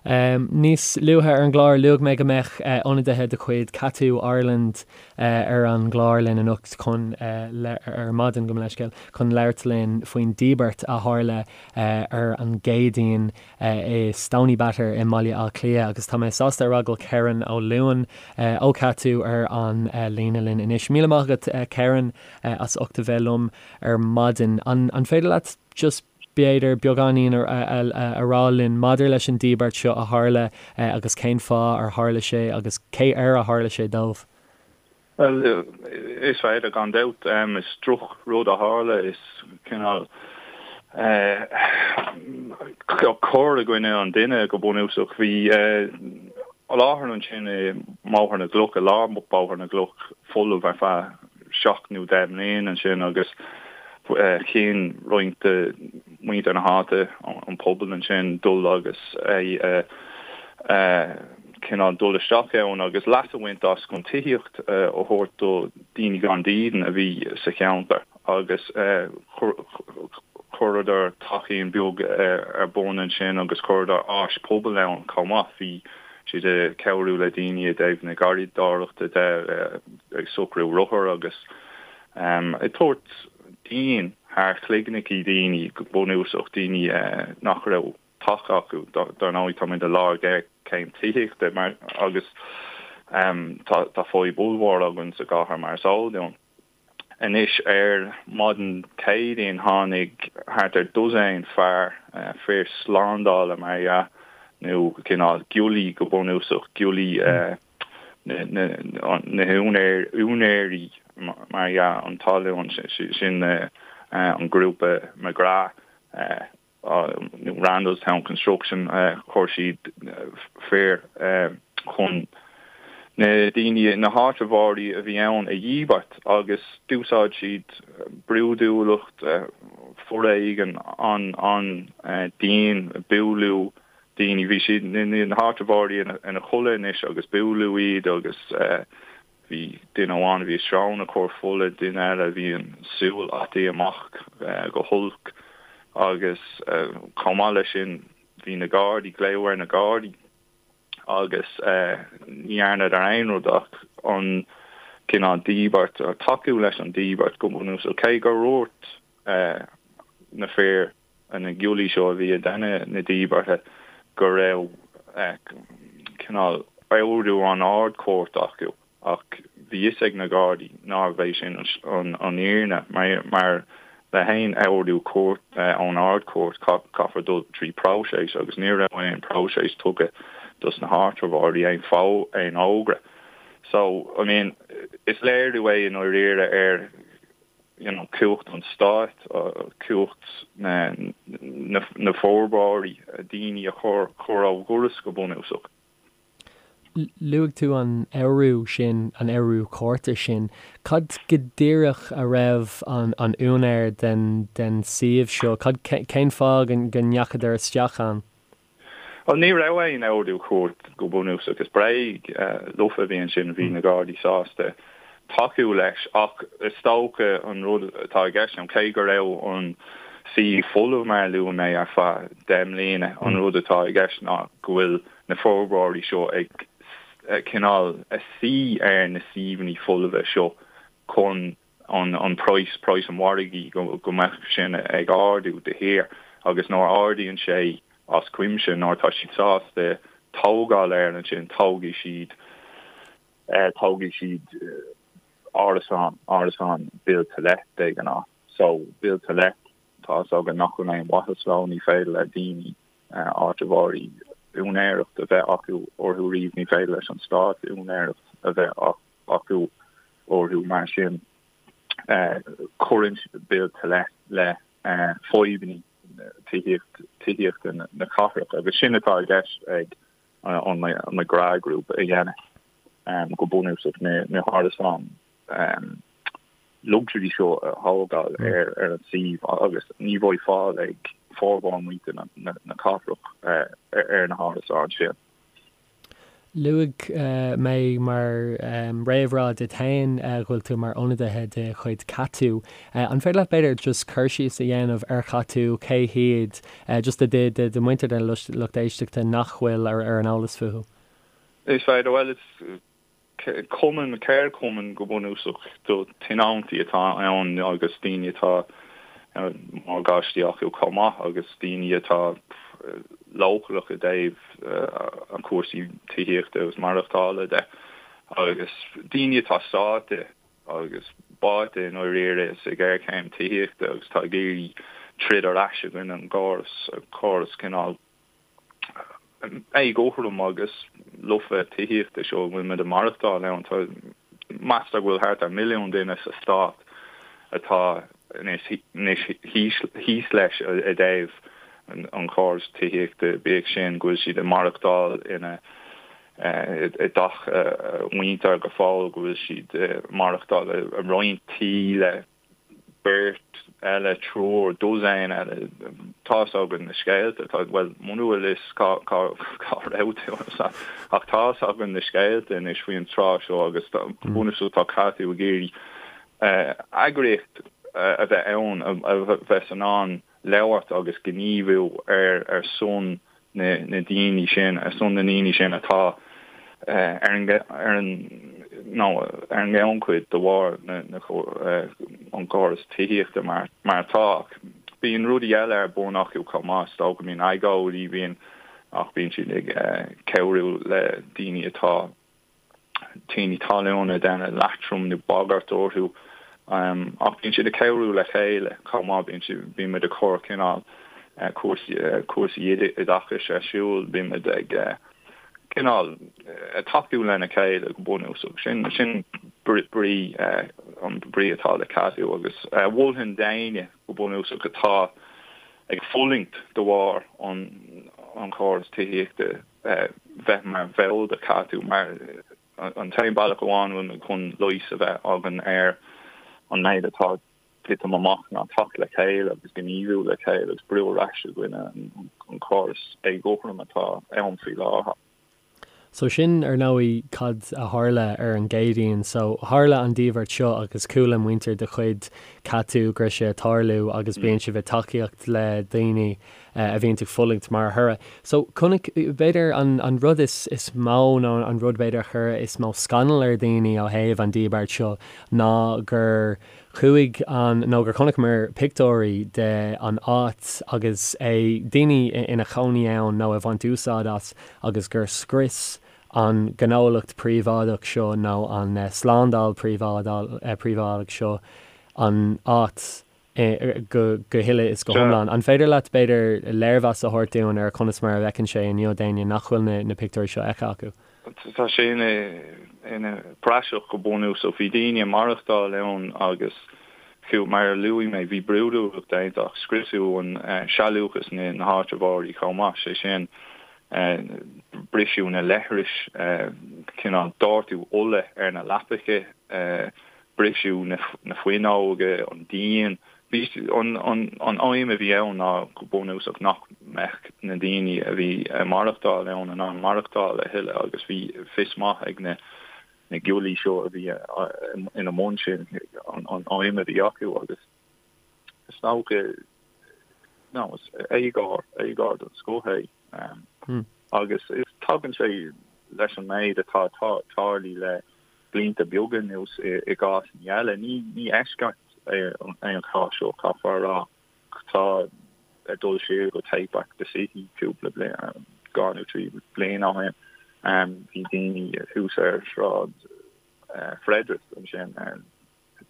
Níos luaithe ar an gclár, luaigh mé go mbeadh ionadaithe de chuid Cadhú Ireland ar an gclár linn anocht chun, ar maidin, gabh mo leithscéal, chun labhairt linn faoin díbirt a tharla ar an gCéadaoin i Stoneybatter i mBaile Átha Cliath agus tá mé sásta a rá go bhfuil Kerron Ó Luain ó Cadhú ar an líne linn anois. Míle maith agat Kerron as ucht a bheith liom ar maidin. An féidir leat just b'fhéidir, beagáinín a rá linn maidir leis an díbirt seo a tharla agus cén fáth ar tharla sé agus cé air a tharla sé dóibh? Bhuel, is féidir, gan dabht. Is droch rud a tharla. Is cineál cor i gcoinne an duine go bunúsach. Bhí láthair ansin i mBóthar na gCloch, i lár Bóthar na gCloch, folamh ar feadh seacht nó 10 mbliana ansin agus chinn roinnt de mhuintir na háite, an pobal ansin, dul agus é a cineál dul isteach ann agus leas a bhaint as chun tithíocht a thabhairt do daoine gan dídean a bhí sa cheantar agus chuireadar teachín beag ar bun ansin agus chuireadar áis pobail ann chomh maith. Bhí siad ag cabhrú le daoine i dtaobh na garraíodóireachta de, ag socrú rothar agus ag tabhairt díon thar chloigneachaí daoine, go bunúsach, daoine nach raibh teach acu. Dar ndóigh, táimid i lár géarchéim tithíochta mar agus tá fadhb ollmhór againn sa gcathair mar is eol dúinn. Anois ar maidin Céadaoin tháinig thart ar dosaen fear, fir slándála mar dhea, nó cineál giollaí go bunúsach, giollaí na húinéirí mar dhea an talún, sin an grúpa McGrath. Randalstown Construction, chuir siad fir chun na daoine, na háitritheoirí a bhí ann a dhíbirt agus d'úsáid siad brúidiúlacht, foréigean an-dian, bualadh daoine, bhí siad, na háitritheoirí ina chodladh anois agus bualadh iad agus. Bhí duine amháin a bhí a srón ag cur fola, duine eile a bhí an súil ataithe amach go holc agus chomh maith leis sin bhí na Gardaí, glaodh ar na Gardaí agus ní dhearnadar aon rud ach an cineál díbirt, tacú leis an díbirt go bunúsach, cé gur dhúirt na fir na giollaí seo a bhí ag déanamh na díbeartha go raibh cineál ordú ón Ard-Chúirt acu ach bhí fhios ag na Gardaí nárbh é sin an fhírinne mar le haon ordú cúirt ón Ard-Chúirt caithfear dul trí próiseas agus ní raibh aon próiseas tugtha dos na háitritheoirí, aon aon fhógra. So, I mean, is léiriú é i ndáiríre ar you know, cumhacht an stáit, cumhacht na bhforbróirí, daoine a chur ó dhoras go bunúsach. Luaigh tú an ordú sin, an ordú cúirte sin. Cad go díreach a raibh an úinéir den den suíomh seo, cad, cén fáth go ndeachadar isteach ann? Bhuel, ní raibh aon ordú cúirt go bunúsach. Is bréag lofa a bhí ansin, bhí na Gardaí sásta tacú leis ach is dócha an rud atá i gceist ann, cé go raibh an suíomh folamh mar a luaigh mé ar feadh 10 mbliana, an rud atá i gceist ná go bhfuil na forbróirí seo ag cineál a suí ar na suíomhanna folmha seo chun an praghas, praghas an mhargaidh, go mbeadh sin ag ardú de shíor agus nuair a ardaíonn sé as cuimse, nuair atá siad sásta tógáil air ansin, tógfaidh siad, tógfaidh siad árasán, árasán build to let de ghnáth. So, build to let, tá fhios againn nach bhfuil aon mhaitheas leo, ní féidir le daoine, áitritheoirí úinéireacht a bheith acu orthu riamh, ní féidir leis an stát úinéireacht a bheith acu orthu. Mar sin, cuireann build to let le fadhbanna tithíochta na cathrach agus sin atá i gceist ag an McGrath Group a dhéanamh go bunúsach, na hárasáin luxury seo a thógáil ar an suíomh agus ní bheidh fáil ag formhór muintir na cathrach ar na hárasáin sin. Luaigh mé mar réamhrá duit féin go bhfuil tú mar ionadaithe de chuid Catú. An féidir leat b'fhéidir just cur síos a dhéanamh ar Chatú, cé hiad, just do do muintir den lucht éisteachta nach bhfuil ar an eolas fúthu? Is féidir, bhuel is cumann, ceardchumann go bunúsach do tionóntaí atá ann agus daoine atá morgáistí acu chomh maith agus daoine atá leochaileach i dtaobh cúrsaí tithíochta agus maireachtála de agus daoine atá sáite agus báite i ndáiríre sa ghéarchéim tithíochta agus atá ag iarraidh troid ar ais i gcoinne an gcóras, córas cineál éagothrom agus lofa tithíochta seo a bhfuil muid ag maireachtáil ann. Tá, meastar go bhfuil thart ar mhilliún duine sa stát atá anois thíos leis i dtaobh an chórais tithíochta, bíodh sin go bhfuil siad ag maireachtáil ina i dteach a muintir go fóill, go bhfuil siad ag maireachtáil i roinnt tí le beirt eile, triúr, dosaen eile. Tá's againn na scéalta, tá, bhuel, muna bhfuil fhios cá, cá, cá raibh tú ach tá's againn na scéalta anois faoin tráth seo agus go bunúsach tá Catú ag iarraidh eagraíocht a bheith ann a bheas in ann labhairt agus gníomhú ar ar son na daoine sin, ar son na ndaoine sin atá ar an ar an nó ar an ngannchuid de bharr na na an córas tithíochta mar mar atá. Ach bíonn rudaí eile ar bun acu chomh maith, is dócha, bíonn agóidí, bíonn ach bíonn siad ag cabhrú le daoine atá tiarnaí talún ag déanamh leatrom nó bagairt orthu. Ach bíonn siad ag cabhrú le chéile chomh maith, bíonn siad, bíonn muid ag cur cineál cúrsaí, cúrsaí oideachais ar siúl, bíonn muid ag cineál tacú lena chéile go bunúsach. Sin, sin brí, an brí atá le Catú agus mholfainn d'éinne go bunúsach atá ag fulaingt de bharr an, an chóras tithíochta, bheith mar bhall de Catú mar an t-aon bealach amháin a bhfuil muid chun leigheas a bheith againn ar an méid atá ag titim amach ná teacht le chéile agus gníomhú le chéile agus brú ar ais i gcoinne an chórais éagothrom atá ann faoi láthair. So sin, ar ndóigh, cad a tharla ar an gCéadaoin. So tharla an díbirt seo agus chuala muintir de chuid Catú go raibh sé ag tarlú agus bíonn sibh ag tacaíocht le daoine a bhíonn ag fulaingt mar thoradh. So, chonaic, b'fhéidir, an an rud is is mó nó an rud b'fhéidir a chuir is mó scannal ar dhaoine ó thaobh an díbirt seo ná gur chuaigh an, nó gur chonaiceamar pictiúirí de an áit agus é, daoine ina chónaí ann nó ag baint úsáid as agus gur scrios an gnólacht príobháideach seo nó an slándáil príobháideach seo an áit. go huile is go hiomlán. An féidir leat, b'fhéidir, léirmheas a thabhairt dúinn ar conas mar a bhfeiceann sé inniu d'éinne nach bhfuil na pictiúirí seo feicthe acu? Tá sé ina praiseach go bunúsach. Bhí daoine ag maireachtáil ann agus fiú, mar a luaigh mé, bhí brúidiúlacht déanta ach scriosadh an sealúchas na háitritheoirí chomh maith, sé sin, briseadh na leithris, cineál doirteadh ola ar na leapacha, briseadh na fuinneoga, an díon. Bhí an aidhm a bhí ann ná go bunúsach nach mbeadh na daoine a bhí ag maireachtáil ann in ann maireachtáil a thuilleadh agus bhí fios maith ag na giollaí seo a bhí ina mbun sin an aidhm a bhí acu agus is dócha nó is éagóir, éagóir den scoth é agus tagann sé leis an méid atá tarlaithe le blianta beaga anuas i gcásanna eile. Ní eisceacht é an cás seo, caithfear a rá. Tá ag dul siar go Take Back the City cúpla bliain, dhá nó trí bliana ó shin, bhí daoine thuas ar Shráid Frederick ansin,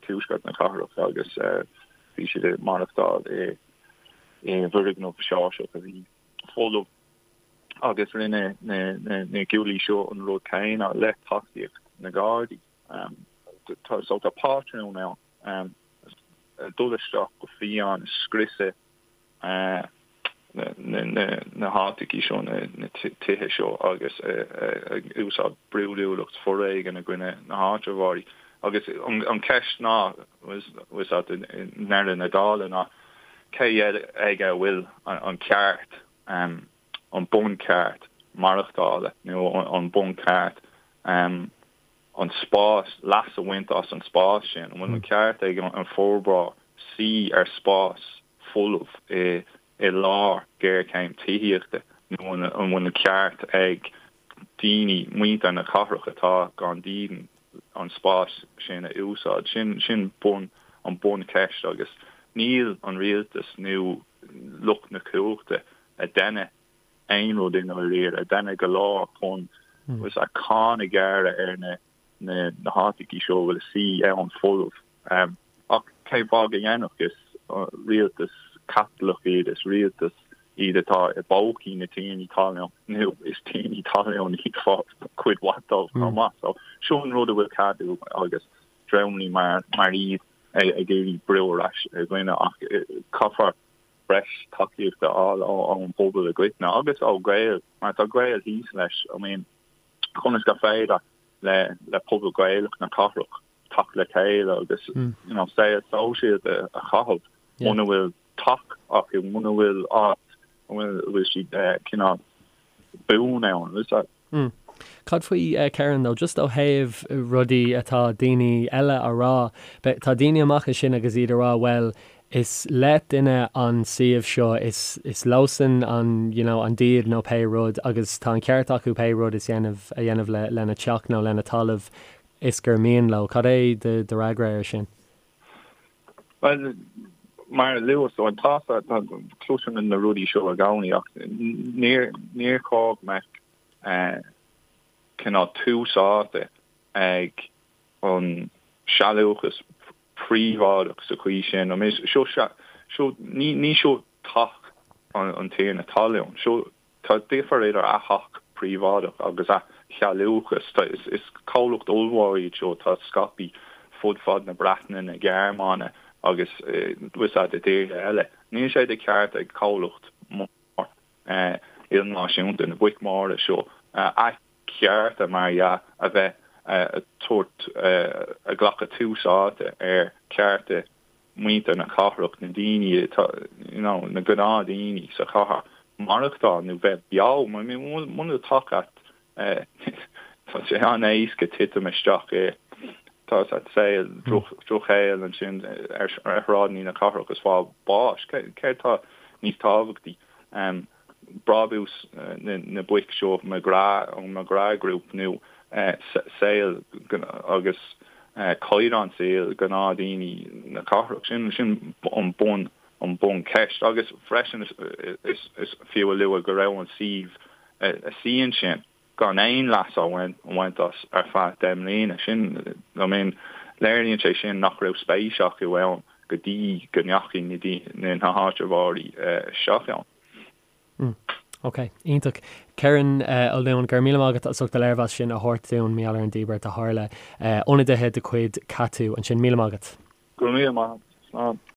tuaisceart na cathrach, agus bhí siad ag maireachtáil i bhfoirgneamh Seoirseach a bhí folamh. agus rinne na giollaí seo an rud céanna le tacaíocht na nGardaí. So tá pátrún ann, dul isteach go fiáin, scriosadh na háiteachaí seo, na tithe seo agus ag úsáid brúidiúlacht foréigin i gcoinne na háitritheoirí. Agus an cheist ná, i ndeireadh na dála, ná cé aige a bhfuil an ceart? an buncheart. maireachtála nó an buncheart an spás, leas a bhaint as an spás sin? An bhfuil an ceart ag an forbróir suí ar spás folamh i i lár géarchéim tithíochta nó an bhfuil an ceart ag daoine, muintir na cathrach atá gan dídean, an spás sin a úsáid? Sin sin bun an buncheist agus níl an rialtas nó lucht na cumhachta ag déanamh aon rud i ndáiríre, ag déanamh go leor chun cáin a ghearradh ar na na háiteachaí seo a bhfuil a suí ann folamh. Ach cén fáth go ndéanfadh? Is rialtas caipitleach iad, is rialtas iad atá i bpócaí na tiarnaí talún, nó is tiarnaí talún iad cuid mhaith dóibh chomh maith. So seo an rud a bhfuil Cadw agus dreamanna mar mar iad ag iarraidh brú ar ais i gcoinne ach caithfear breis tacaíochta a fháil ón bpobal i gcoitinne agus ó Ghaeil mar tá Gaeil thíos leis. I mean conas gur féidir le le pobal Gaelach na cathrach teacht le chéile agus you know saol sóisialta a chaitheamh muna bhfuil teach acu, muna bhfuil áit a bhfuil siad cineál buan ann. Is that. Mm. Cad faoi Kieran though, just ó thaobh rudaí atá daoine eile a rá, tá daoine amach ansin agus iad a rá bhuel is le duine an suíomh seo, is is leosan an you know an díd nó pé rud agus tá an ceart acu pé rud is dhéanamh a dhéanamh le lena teach nó lena talamh is gur mian leo. Cad é do do fhreagra air sin? Bhuel, mar a luaigh tú, tá cloisim na rudaí seo i gcónaí ach níor níor chóir go mbeadh cineál tús áite ag an sealúchas príobháideach sa chaoi sin. I mean, seo seo ní ní seo teach an tiarna talún. Seo Tá difear idir a theach príobháideach agus a shealúchas. Is comhlacht ollmhór iad seo atá scaipthe fud fad na Breataine, na Gearmáine agus bhfuil a fhios agat i dtíortha eile. Níl sé de cheart ag comhlacht mór ilnáisiúnta, na boic mhóra seo, a chearta, mar dhea, a bheith ag tabhairt, ag glacadh tús áite ar chearta muintir na cathrach, na daoine atá, you know, na gnáthdhaoine sa chathair, maireachtáil nó bheith beo. I mean, muna bhfuil teach agat, tá sé an-éasca titim isteach i, tá a fhios agat, saol, drochshaol ansin ar shráideanna na cathrach is fáil bháis. Céard tá níos tábhachtaí? Brabús na boic seo, McGrath, an McGrath Group nó saol agus caighdeán saoil gnáthdhaoine na cathrach. Sin sin an bun an buncheist. Agus freisin is is fiú a lua go raibh an suíomh a suí ansin gan aon leas á bhaint as ar feadh 10 mbliana. Sin I mean léiríonn sé sin nach raibh spéis acu ann go dtí go ndeachaigh na na háitritheoirí isteach ann. Mm. Ok. Iontach. Kerron Ó Luain, go raibh míle maith agat as ucht an léirmheas sin a thabhairt dúinn mar gheall ar an díbirt a tharla. Ionadaithe de chuid Cadw ansin. Míle maith agat. Go raibh míle maith agat. Slán.